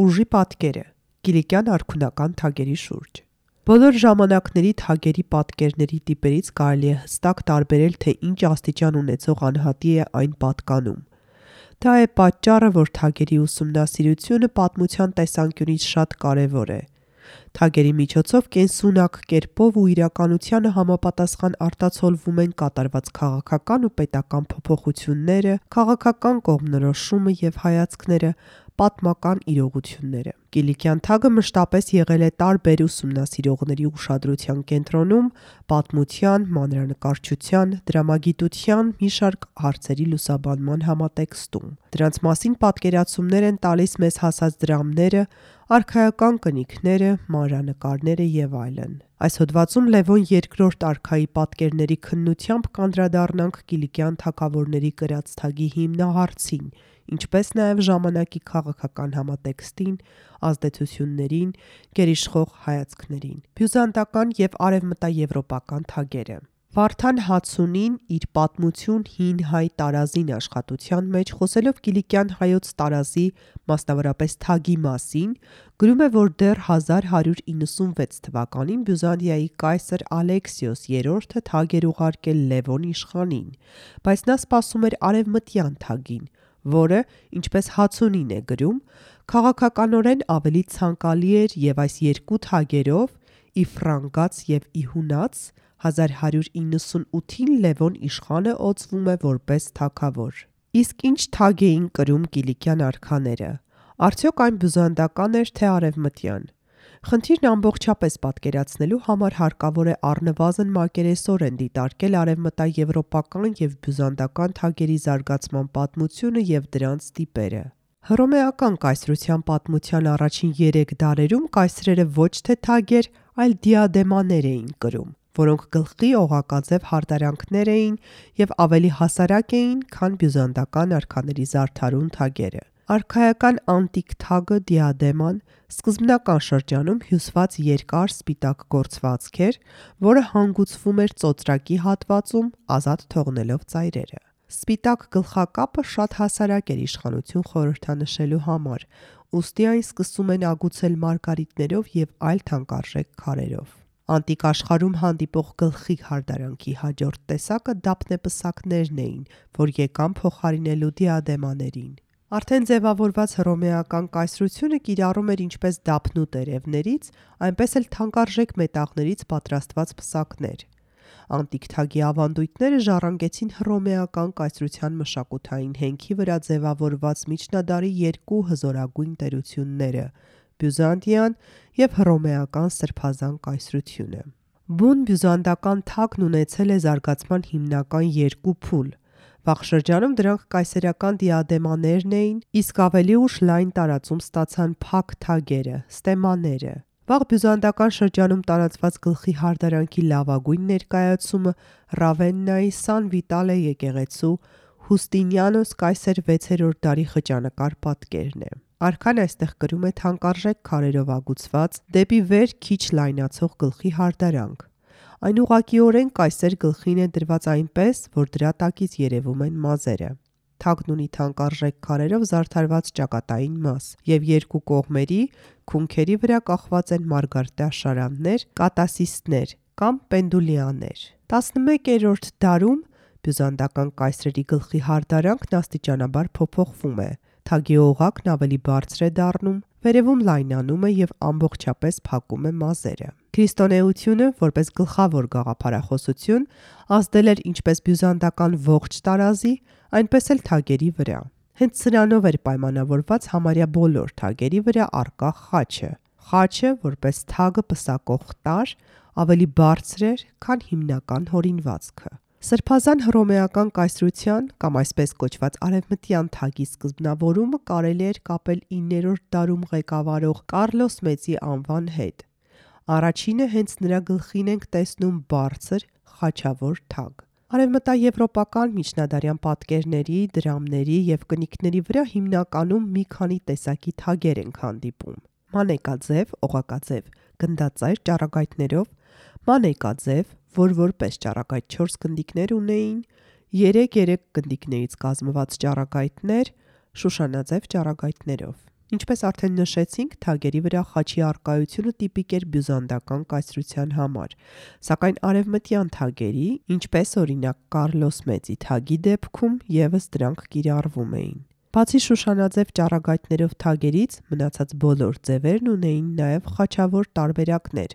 Ուժի պատկերը՝ Կիլիկյան արքունական թագերի շուրջ։ Բոլոր ժամանակների թագերի պատկերների տիպերից կարելի է հստակ տարբերել, թե ինչ աստիճան ունեցող անհատի է այն պատկանում։ Դա է պատճառը, որ թագերի ուսումնասիրությունը պատմության տեսանկյունից շատ կարևոր է։ Թագերի միջոցով կենսունակ կերպով ու իրականությանը համապատասխան արտացոլվում են կատարված քաղաքական ու պետական փոփոխությունները, քաղաքական կողմնորոշումը և հայացքները, պատմական իրողությունները։ Կիլիկյան թագը մշտապես եղել է տարբեր ուսումնասիրողների ուշադրության կենտրոնում, պատմության, մանրանկարչության, դրամագիտության մի շարք հարցերի լուսաբանման համատեքստում։ Դրանց մասին պատկերացումներ են տալիս մեզ հասած դրամները, արքայական կնիքները, մանրանկարները և այլն։ Այս հոդվածում Լևոն II արքայի պատկերների քննությամբ կանդրադառնանք Կիլիկյան թագավորների կրած թագի հիմնահարցին, ինչպես նաև ժամանակի քաղաքական համատեքստին, ազդեցություններին, գերիշխող հայացքներին։ Բյուզանդական և արևմտաեվրոպական թագերը։ Վարդան Հացունին իր «Պատմություն հին հայ տարազին» աշխատության մեջ, խոսելով կիլիկյան հայոց տարազի, մասնավորապես թագի մասին, գրում է, որ դեռ 1196 թվականին Բյուզանդիայի կայսր Ալեքսիոս III թագ էր ուղարկել Լևոն իշխանին, բայց նա սպասում էր արևմտյան թագին, որը, ինչպես Հացունին է գրում, քաղաքականորեն ավելի ցանկալի էր և այս երկու թագերով՝ ի ֆրանկաց և ի հունաց, 1198-ին Լևոն իշխանը օծվում է որպես թագավոր։ Իսկ ինչ թագ էին կրում կիլիկյան արքաները։ Արդյոք այն բյուզանդական էր, թե արևմտյան։ Խնդիրն ամբողջապես պատկերացնելու համար հարկավոր է առնվազն մակերեսորեն դիտարկել արևմտաեվրոպական և բյուզանդական թագերի զարգացման պատմությունը և դրանց տիպերը։ Հռոմեական կայսրության պատմության առաջին 3 դարերում կայսրերը ոչ թե թագեր, այլ դիադեմաներ էին կրում, որոնք գլխի օղակաձև հարդարանքներ էին և ավելի հասարակ էին, քան բյուզանդական արքաների զարդարուն թագերը։ Արքայական անտիկ թագը դիադեման սկզբնական շրջանում հյուսված երկար սպիտակ գործվածք էր, որը հանգուցվում էր ծոծրակի հատվածում, ազատ թողնելով ծայրերը։ Սպիտակ գլխակապը շատ հասարակ էր իշխանություն խորհրդանշելու համար, ուստի այն սկսում են ագուցել մարգարիտներով և այլ թանկարժեք քարերով։ Անտիկ աշխարհում հանդիպող գլխի հարդարանքի հաջորդ տեսակը դափնեպսակներն էին, որ եկան փոխարինելու դիադեմաներին։ Արդեն ձևավորված հռոմեական կայսրությունը կիրառում էր ինչպես դափնու տերևներից, այնպես էլ թանկարժեք մետաղներից պատրաստված պսակներ։ Անտիկ թագի ավանդույթները ժառանգեցին հռոմեական կայսրության մշակութային հենքի վրա ձևավորված միջնադարի երկու հզորագույն տերությունները՝ Բյուզանդիան և հռոմեական սրբազան կայսրությունը։ Բուն բյուզանդական թագն ունեցել է զարգացման հիմնական երկու փուլ։ Վաղ շրջանում դրանք կայսերական դիադեմաներն էին, իսկ ավելի ուշ լայն տարածում ստացան փակ թագերը՝ ստեմաները։ Վաղ բյուզանդական շրջանում տարածված գլխի հարդարանքի լավագույն ներկայացումը Ռավեննայի Սան Վիտալե եկեղեցու Հուստինիանոս կայսեր 6-րդ դարի խճանկար պատկերն է։ Արքան այստեղ կրում է թանկարժեք քարերով ագուցված, դեպի վեր քիչ լայնացող գլխի հարդարանք։ Այն ուղղակիորեն կայսեր գլխին է դրված այնպես, որ դրա տակից երևում են մազերը։ Թագն ունի թանկարժեք քարերով զարդարված ճակատային մաս, և երկու կողմերի, քունքերի վրա կախված են մարգարտաշարաններ, կատասիստներ կամ պենդուլյաներ։ 11-րդ դարում բյուզանդական կայսրերի գլխի հարդարանքն աստիճանաբար փոփոխվում է։ Թագի օղակն ավելի բարձր է դառնում, վերևում լայնանում է և ամբողջապես փակում է մազերը։ Քրիստոնեությունը, որպես գլխավոր գաղափարախոսություն, ազդել էր ինչպես բյուզանդական ողջ տարազի, այնպես էլ թագերի վրա։ Հենց սրանով էր պայմանավորված համարյա բոլոր թագերի վրա առկա խաչը։ Խաչը, որպես թագը պսակող տարր, ավելի բարձր էր, քան հիմնական հորինվածքը։ Սրբազան հռոմեական կայսրության կամ այսպես կոչված արևմտյան թագի սկզբնավորումը կարելի էր կապել 9-րդ դարում ղեկավարող Կարլոս Մեծի անվան հետ։ Առաջինը հենց նրա գլխին ենք տեսնում բարձր, խաչավոր թագ։ Արևմտաեվրոպական միջնադարյան պատկերների, դրամների և կնիքների վրա հիմնականում մի քանի տեսակի թագեր ենք հանդիպում՝ մանեկաձև, օղակաձև, գնդաձայր ճառագայթներով, մանեկաձև, որ որպես ճառագայթ 4 գնդիկներ ունեին, 3 գնդիկներից կազմված ճառագայթներ, շուշանաձև ճառագայթներով։ Ինչպես արդեն նշեցինք, թագերի վրա խաչի առկայությունը տիպիկ էր բյուզանդական կայսրության համար, սակայն արևմտյան թագերի, ինչպես օրինակ Կարլոս Մեծի թագի դեպքում, ևս դրանք կիրառվում էին։ Բացի շուշանաձև ճառագայթներով թագերից, մնացած բոլոր ձևերն ունեին նաև խաչավոր տարբերակներ,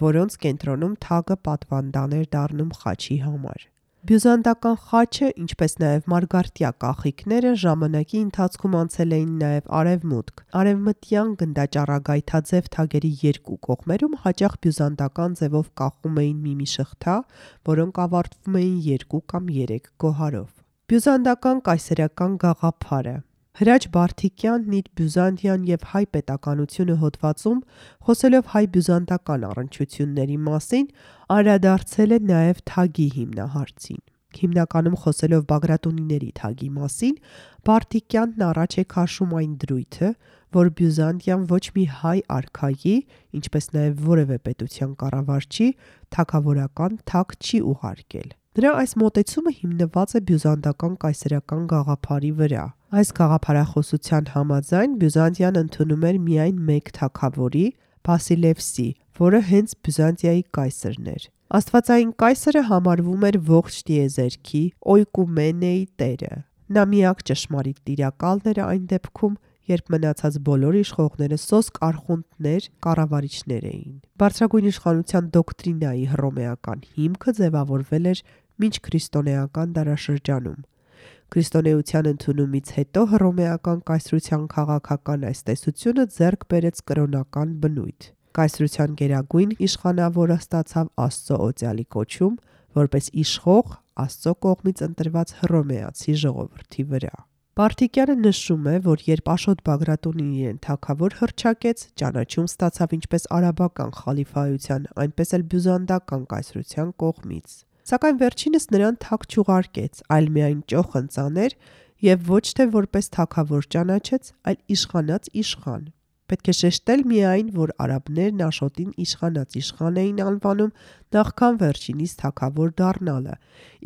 որոնց կենտրոնում թագը պատվանդան էր դառնում խաչի համար։ Բյուզանդական խաչը, ինչպես նաև մարգարտյա կախիկները ժամանակի ընթացքում անցել էին նաև արևմուտք։ Արևմտյան գնդաճառագայթաձև թագերի երկու կողմերում հաճախ բյուզանդական ձևով կախում էին մի շղթա, որոնք ավարտվում էին 2 կամ 3 գոհարով։ Բյուզանդական կայսերական գաղափարը Հրաչ Բարթիկյանն իր Բյուզանդիան և հայ պետականությունը հոդվածում, խոսելով հայ-բյուզանդական առնչությունների մասին, անդրադարձել է նաև թագի հիմնահարցին։ Հիմնականում խոսելով Բագրատունիների թագի մասին, Բարթիկյանն առաջ է քաշում այն դրույթը, որ Բյուզանդիան ոչ մի հայ արքայի, ինչպես նաև որևէ պետության կառավարչի թագավորական թագ չի ուղարկել։ Նրա այս մոտեցումը հիմնված է բյուզանդական կայսերական գաղափարի վրա։ Այս գաղափարախոսության համաձայն Բյուզանդիան ընդունում էր միայն մեկ թագավորի՝ Բասիլևսի, որը հենց Բյուզանդիայի կայսրն էր։ Աստվածային կայսրը համարվում էր ողջ տիեզերքի օյկումենեի տերը։ Նա միակ ճշմարիտ տիրակալն էր այն դեպքում, երբ մնացած բոլոր իշխողները սոսկ արխունտներ, կառավարիչներ էին։ Բարձրագույն իշխանության դոկտրինայի հռոմեական հիմքը ձևավորվել էր մինչ քրիստոնեական դարաշրջանում։ Քրիստոնեության ընդունումից հետո հռոմեական կայսրության քաղաքական այս տեսությունը ձեռք բերեց կրոնական բնույթ։ Կայսրության գերագույն իշխանավորը ստացավ Աստծո օծյալի կոչում, որպես իշխող Աստծո կողմից ընտրված հռոմեացի ժողովրդի վրա։ Բարթիկյանը նշում է, որ երբ Աշոտ Բագրատունին իրեն թագավոր հռչակեց, ճանաչում ստացավ ինչպես արաբական խալիֆայության, այնպես էլ բյուզանդական կայսրության կողմից։ Սակայն վերջինս նրան թագ չուղարկեց, այլ միայն ճոխ ընծաներ և ոչ թե որպես թագավոր ճանաչեց, այլ իշխանած իշխան։ Պետք է շեշտել միայն, որ արաբներն Աշոտին իշխանած իշխան էին անվանում նախքան վերջինիս թագավոր դառնալը,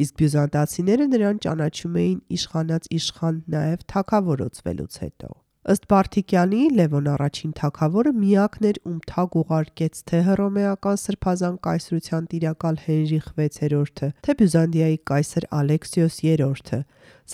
իսկ բյուզանդացիները նրան ճանաչում էին իշխանած իշխան նաև թագավորացվելուց հետո։ Ըստ Բարթիկյանի, Լևոն առաջին թագավորը միակն էր, ում թագ ուղարկեց թե հռոմեական սրբազան կայսրության տիրակալ Հենրիխ VI-ը, թե Բյուզանդիայի կայսր Ալեքսիոս III-ը,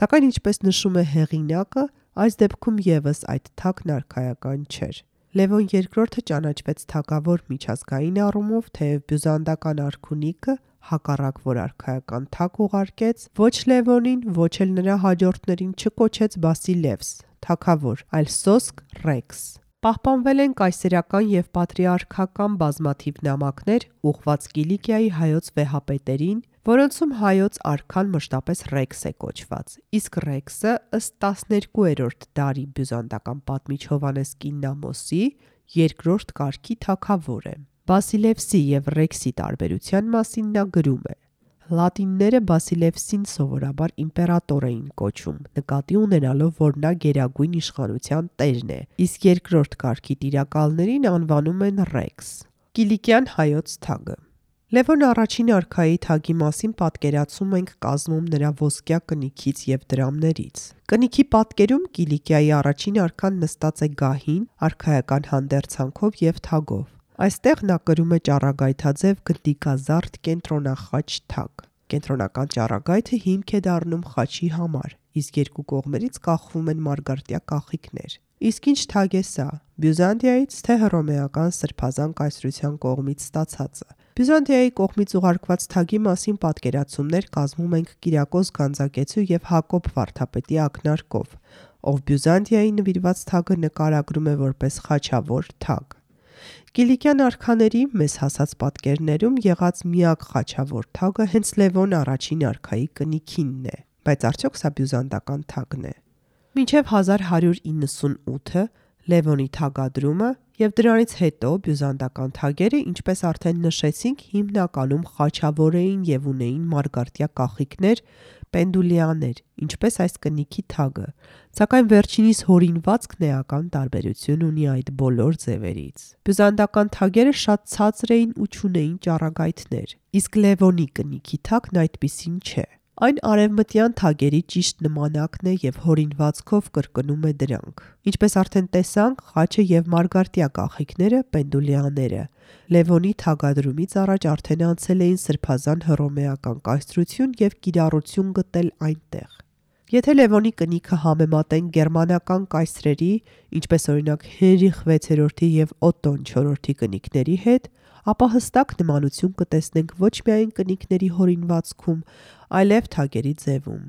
սակայն ինչպես նշում է հեղինակը, այս դեպքում ևս այդ թագն արքայական չէր։ Լևոն II-ը ճանաչվեց թագավոր միջազգային առումով, թեև բյուզանդական արքունիքը, հակառակ որ արքայական թագ ուղարկեց, ոչ Լևոնին, ոչ էլ նրա հաջորդներին չկոչեց Բասիլևս, թագավոր, այլ սոսկ Ռեքս։ Պահպանվել են կայսերական և պատրիարքական բազմաթիվ նամակներ ուղղված Կիլիկիայի հայոց վեհապետերին, որոնցում հայոց արքան մշտապես Ռեքս է կոչված, իսկ Ռեքսը ըստ 12-րդ դարի բյուզանդական պատմիչ Հովհաննես Կիննամոսի երկրորդ կարգի թագավոր է։ Բասիլևսի և Ռեքսի տարբերության մասին նա գրում է. Լատինները Բասիլևսին սովորաբար իմպերատոր էին կոչում, նկատի ունենալով, որ նա գերագույն իշխանության տերն է, իսկ երկրորդ կարգի տիրակալներին անվանում են Ռեքս։ Կիլիկյան հայոց թագը Լևոն առաջին արքայի թագի մասին պատկերացում ենք կազմում նրա ոսկյա կնիքից և դրամներից։ Կնիքի պատկերում Կիլիկիայի առաջին արքան նստած է գահին, արքայական հանդերձանքով և թագով։ Այստեղ նա կրում է ճառագայթաձև գնդիկազարդ կենտրոնախաչ թագ։ Կենտրոնական ճառագայթը հիմք է դառնում խաչի համար, իսկ երկու կողմերից կախվում են մարգարտյա կախիկներ։ Իսկ ինչ թագ է սա՝ Բյուզանդիայից, թե հռոմեական սրբազան կայսրության կողմից ստացածը։ Բյուզանդիայի կողմից ուղարկված թագի մասին պատկերացումներ կազմում ենք Կիրակոս Գանձակեցու և Հակոբ վարդապետի ակնարկով, ով Բյուզանդիայի նվիրված թագը նկարագրում է որպես խաչավոր թագ։ Կիլիկյան արքաների մեզ հասած պատկերներում եղած միակ խաչավոր թագը հենց Լևոն առաջին արքայի կնիքինն է, բայց արդյոք սա բյուզանդական թագն է։ Մինչև 1198-ը Լևոնի թագադրումը և դրանից հետո բյուզանդական թագերը, ինչպես արդեն նշեցինք, հիմնականում խաչավոր էին և ունեին մարգարտյա կախիկներ, պենդուլյաներ, ինչպես այս կնիքի թագը, սակայն վերջինիս հորինվածքն էական տարբերություն ունի այդ բոլոր ձևերից։ Բյուզանդական թագերը շատ ցածր էին ու չունեին ճառագայթներ, իսկ Լևոնի կնիքի թագն այդպիսին չէ։ Այն արևմտյան թագերի ճիշտ նմանակն է և հորինվածքով կրկնում է դրանք։ Ինչպես արդեն տեսանք, խաչը և մարգարտյա կախիկները պենդուլյաները Լևոնի թագադրումից առաջ արդեն անցել էին սրբազան հռոմեական կայսրություն և կիրառություն գտել այնտեղ։ Եթե Լևոնի կնիքը համեմատենք գերմանական կայսրերի, ինչպես օրինակ Հենրիխ 6-րդի և Օտտոն 4-րդի կնիկների հետ, ապա հստակ նմանություն կտեսնենք ոչ միայն կնիկների հորինվածքում, այլև թագերի ձևում։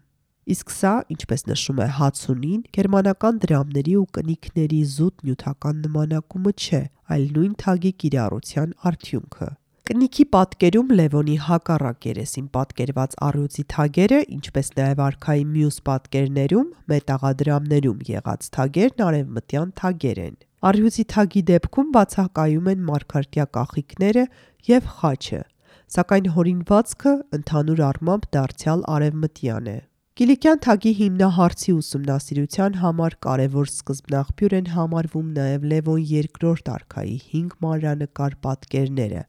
Իսկ սա, ինչպես նշում է Հացունին, գերմանական դրամների ու կնիկների զուտ նյութական նմանակումը չէ, այլ նույն թագի կիրառության արդյունքը։ Կնիքի պատկերում Լևոնի հակառակ երեսին պատկերված առյուծի թագերը, ինչպես նաև արքայի մյուս պատկերներում, մետաղադրամներում եղած թագերն արևմտյան թագեր են։ Առյուծի թագի դեպքում բացակայում են մարգարտյա կախիկները և խաչը, սակայն հորինվածքը ընդհանուր առմամբ դարձյալ արևմտյան է։ Կիլիկյան թագի հիմնահարցի ուսումնասիրության համար կարևոր սկզբնաղբյուր են համարվում նաև Լևոն II արքայի 5 մանրանկար պատկերները,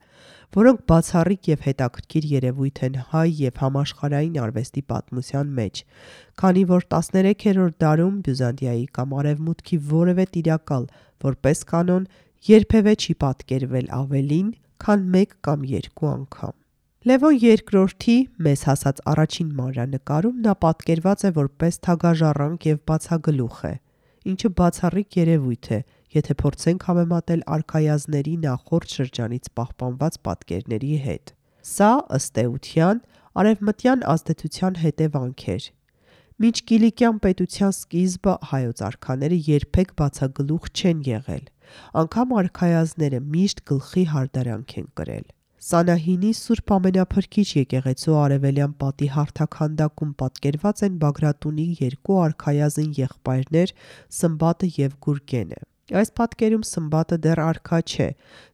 որոնք բացառիկ և հետաքրքիր երևույթ են հայ և համաշխարհային արվեստի պատմության մեջ, քանի որ 13-րդ դարում Բյուզանդիայի կամ Արևմուտքի որևէ տիրակալ, որպես կանոն, երբևէ չի պատկերվել ավելին, քան 1 կամ 2 անգամ։ Լևոն II-ի մեզ հասած առաջին մանրանկարում նա պատկերված է որպես թագաժառանգ և բացագլուխ է, ինչը բացառիկ երևույթ է, եթե փորձենք համեմատել արքայազնների նախորդ շրջանից պահպանված պատկերների հետ։ Սա, ըստ էության, արևմտյան ազդեցության հետևանք էր։ Մինչ Կիլիկյան պետության սկիզբը հայոց արքաները երբեք բացագլուխ չեն եղել, անգամ արքայազնները միշտ գլխի հարդարանք են կրել։ Սանահինի Սուրբ Ամենափրկիչ եկեղեցու արևելյան պատի հարթաքանդակում պատկերված են Բագրատունի 2 արքայազն եղբայրներ Սմբատը և Գուրգենը։ Այս պատկերում Սմբատը դեռ արքա չէ,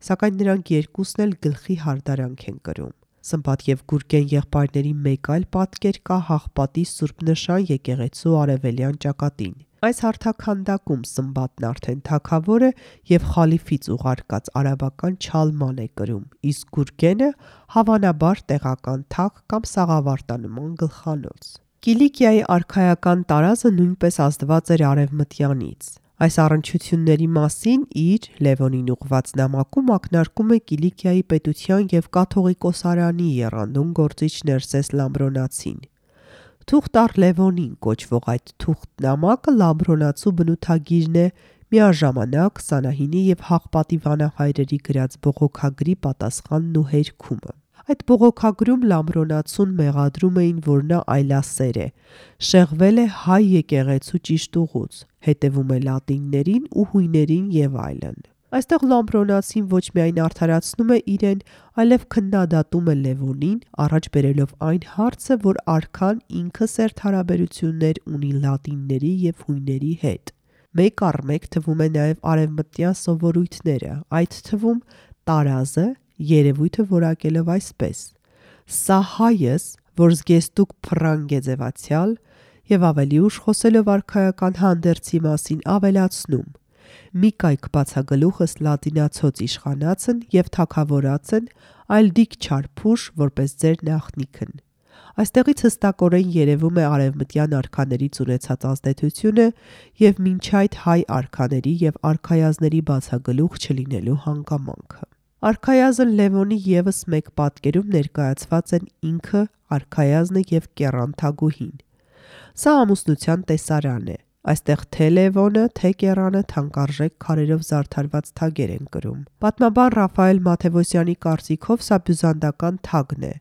սակայն նրանք երկուսն էլ գլխի հարդարանք են կրում։ Սմբատ և Գուրգեն եղբայրների մեկ այլ պատկեր կա Հաղպատի Սուրբ Նշան եկեղեցու արևելյան ճակատին։ Այս հարթաքանդակում Սմբատն արդեն թագավոր է և խալիֆից ուղարկած արաբական չալման է կրում, իսկ Գուրգենը հավանաբար տեղական թագ կամ սաղավարտանման գլխանոց։ Կիլիկիայի արքայական տարազը նույնպես ազդված էր արևմտյանից։ Այս առնչությունների մասին իր Լևոնին ուղղված նամակում ակնարկում է Կիլիկիայի պետության և կաթողիկոսարանի եռանդուն գործիչ Ներսես Լամբրոնացին։ Թուղթ առ Լևոնին կոչվող այդ թուղթ նամակը լամբրոնացու բնութագիրն է, միաժամանակ Սանահինի և Հաղպատի վանահայրերի գրած բողոքագրի պատասխանն ու հերքումը։ Այդ բողոքագրում Լամբրոնացուն մեղադրում էին, որ նա այլասեր է, շեղվել է հայ եկեղեցու ճիշտ ուղուց, հետևում է լատիններին ու հույներին և այլն։ Այստեղ Լամբրոնացին ոչ միայն արդարացնում է իրեն, այլև քննադատում է Լևոնին, առաջ բերելով այն հարցը, որ արքան ինքը սերտ հարաբերություններ ունի լատինների և հույների հետ։ Մեկ առ մեկ թվում է նաև արևմտյան սովորույթները, այդ թվում տարազը, երևույթը որակելով այսպես. «Սա հայս, որ զգեստուկ փռանգ է ձևացյալ», և ավելի ուշ խոսելով արքայական հանդերձի մասին ավելացնում. «Մի կայք բացագլուխս լատինացոց իշխանացն և թագավորացն, այլ դիք չար փուշ, որպես ձեր նախնիքն»։ Այստեղից հստակորեն երևում է արևմտյան արքաներից ունեցած ազդեցությունը և մինչ այդ հայ արքաների և արքայազնների բացագլուխ չլինելու հանգամանքը։ Արքայազն Լևոնի ևս մեկ պատկերում ներկայացված են ինքը, արքայազնը և կեռան թագուհին։ Սա ամուսնության տեսարան է։ Այստեղ թե Լևոնը, թե կեռանը թանկարժեք քարերով զարդարված թագեր են կրում։ Պատմաբան Ռաֆայել Մաթևոսյանի կարծիքով սա բյուզանդական թագն է,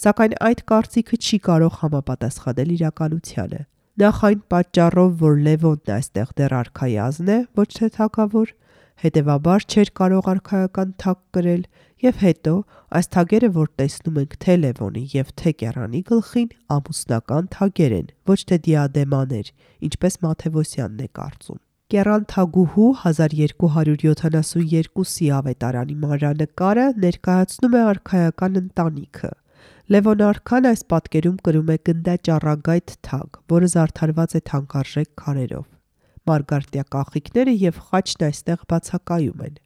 սակայն այդ կարծիքը չի կարող համապատասխանել իրականությանը։ Նախ այն պատճառով, որ Լևոնն այստեղ դեռ արքայազն է, ոչ թե թագավոր, հետևաբար չէր կարող արքայական թագ կրել, և հետո այս թագերը, որ տեսնում ենք թե Լևոնի և թե կեռանի գլխին, ամուսնական թագեր են, ոչ թե դիադեմաներ, ինչպես Մաթևոսյանն է կարծում։ Կեռան թագուհու 1272-ի ավետարանի մանրանկարը ներկայացնում է արքայական ընտանիքը։ Լևոն արքան այս պատկերում կրում է գնդաճառագայթ թագ, որը զարդարված է թանկարժեք քարերով։ Մարգարտյա կախիկները և խաչն այստեղ բացակայում են։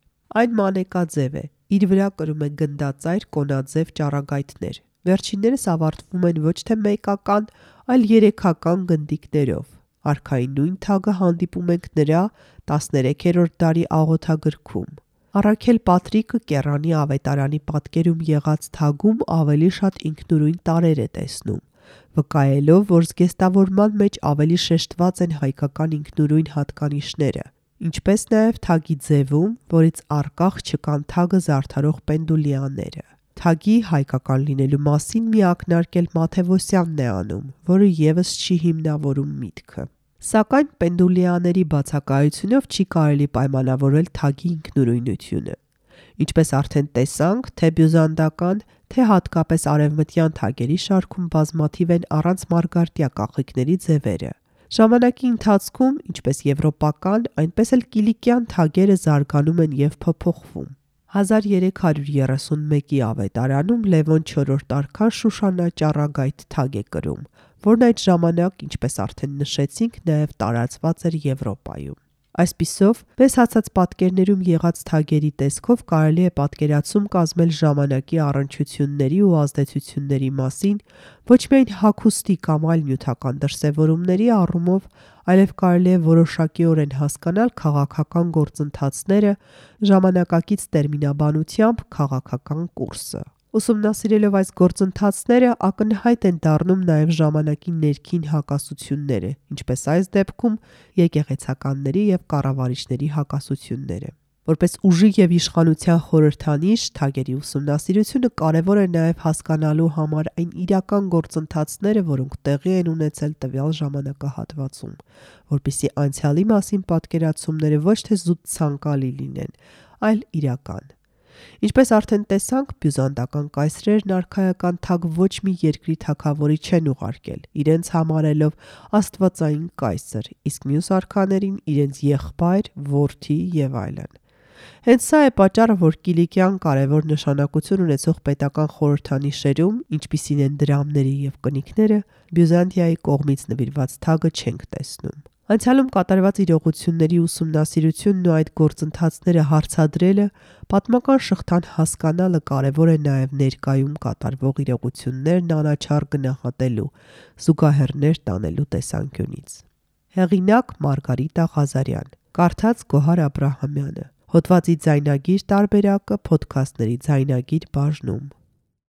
Այն մանեկաձև է, իր վրա կրում է գնդածայր կոնաձև ճառագայթներ։ Վերջիններս ավարտվում են ոչ թե մեկական, այլ 3-ական գնդիկներով։ Արքայի նույն թագը հանդիպում ենք նրա 13-րդ դարի աղոթագրքում։ Առաքել Պատրիկը Կեռանի ավետարանի պատկերում եղած թագում ավելի շատ ինքնուրույն տարրեր է տեսնում, վկայելով, որ զգեստավորման մեջ ավելի շեշտված են հայկական ինքնուրույն հատկանիշները, ինչպես նաև թագի ձևում, որից առկախ չկան թագը զարդարող պենդուլյանները։ Թագի հայկական լինելու մասին մի ակնարկ էլ Մաթևոսյանն է անում, որը ևս չի հիմնավորում միտքը։ Սակայն պենդուլյաների բացակայությունով չի կարելի պայմանավորել թագի ինքնուրույնությունը։ Ինչպես արդեն տեսանք, թե բյուզանդական, թե հատկապես արևմտյան թագերի շարքում բազմաթիվ են առանց մարգարտյա կախիկների ձևերը։ Ժամանակի ընթացքում, ինչպես եվրոպական, այնպես էլ կիլիկյան թագերը զարգանում են և փոփոխվում։ 1331-ի ավետարանում Լևոն IV արքան Շուշանա ճառագայթ թագ է կրում, որն այդ ժամանակ, ինչպես արդեն նշեցինք, նաև տարածված էր Եվրոպայում։ Այսպիսով, մեզ հացած պատկերներում եղած թագերի տեսքով կարելի է պատկերացում կազմել ժամանակի առնչությունների ու ազդեցությունների մասին ոչ միայն հագուստի կամ այլ նյութական դրսևորումների առումով, այլև կարելի է որոշակիորեն հասկանալ քաղաքական գործընթացները, ժամանակակից տերմինաբանությամբ քաղաքական կուրսը։ Ուսումնասիրելով այս գործընթացները ակնհայտ են դառնում նաև ժամանակի ներքին հակասությունները, ինչպես այս դեպքում եկեղեցականների և կառավարիչների հակասությունները։ Որպես ուժի և իշխանության խորհրդանիշ, թագերի ուսումնասիրությունը կարևոր է նաև հասկանալու համար այն իրական գործընթացները, որոնք տեղի են ունեցել տվյալ ժամանակահատվածում, որպեսզի անցյալի մասին պատկերացումները ոչ թե զուտ ցանկալի լինեն, այլ իրական։ Ինչպես արդեն տեսանք, բյուզանդական կայսրերն արքայական թագ ոչ մի երկրի թագավորի չեն ուղարկել, իրենց համարելով աստվածային կայսր, իսկ մյուս արքաներին իրենց եղբայր, որդի և այլն։ Հենց սա է պատճառը, որ կիլիկյան կարևոր նշանակություն ունեցող պետական խորհրդանիշերում, ինչպիսին են դրամները և կնիկները, Բյուզանդիայի կողմից նվիրված թագը չենք տեսնում։ Անցյալում կատարված իրողությունների ուսումնասիրությունն ու այդ գործընթացները հարցադրելը, պատմական շղթան հասկանալը կարևոր է նաև ներկայում կատարվող իրողություններն անաչառ գնահատելու, զուգահեռներ տանելու տեսանկյունից։ Հեղինակ՝ Մարգարիտա Ղազարյան, կարդաց Գոհար Աբրահամյանը։ Հոդվածի ձայնագիր տարբերակը Փոդքասթների ձայնագիր բաժնում։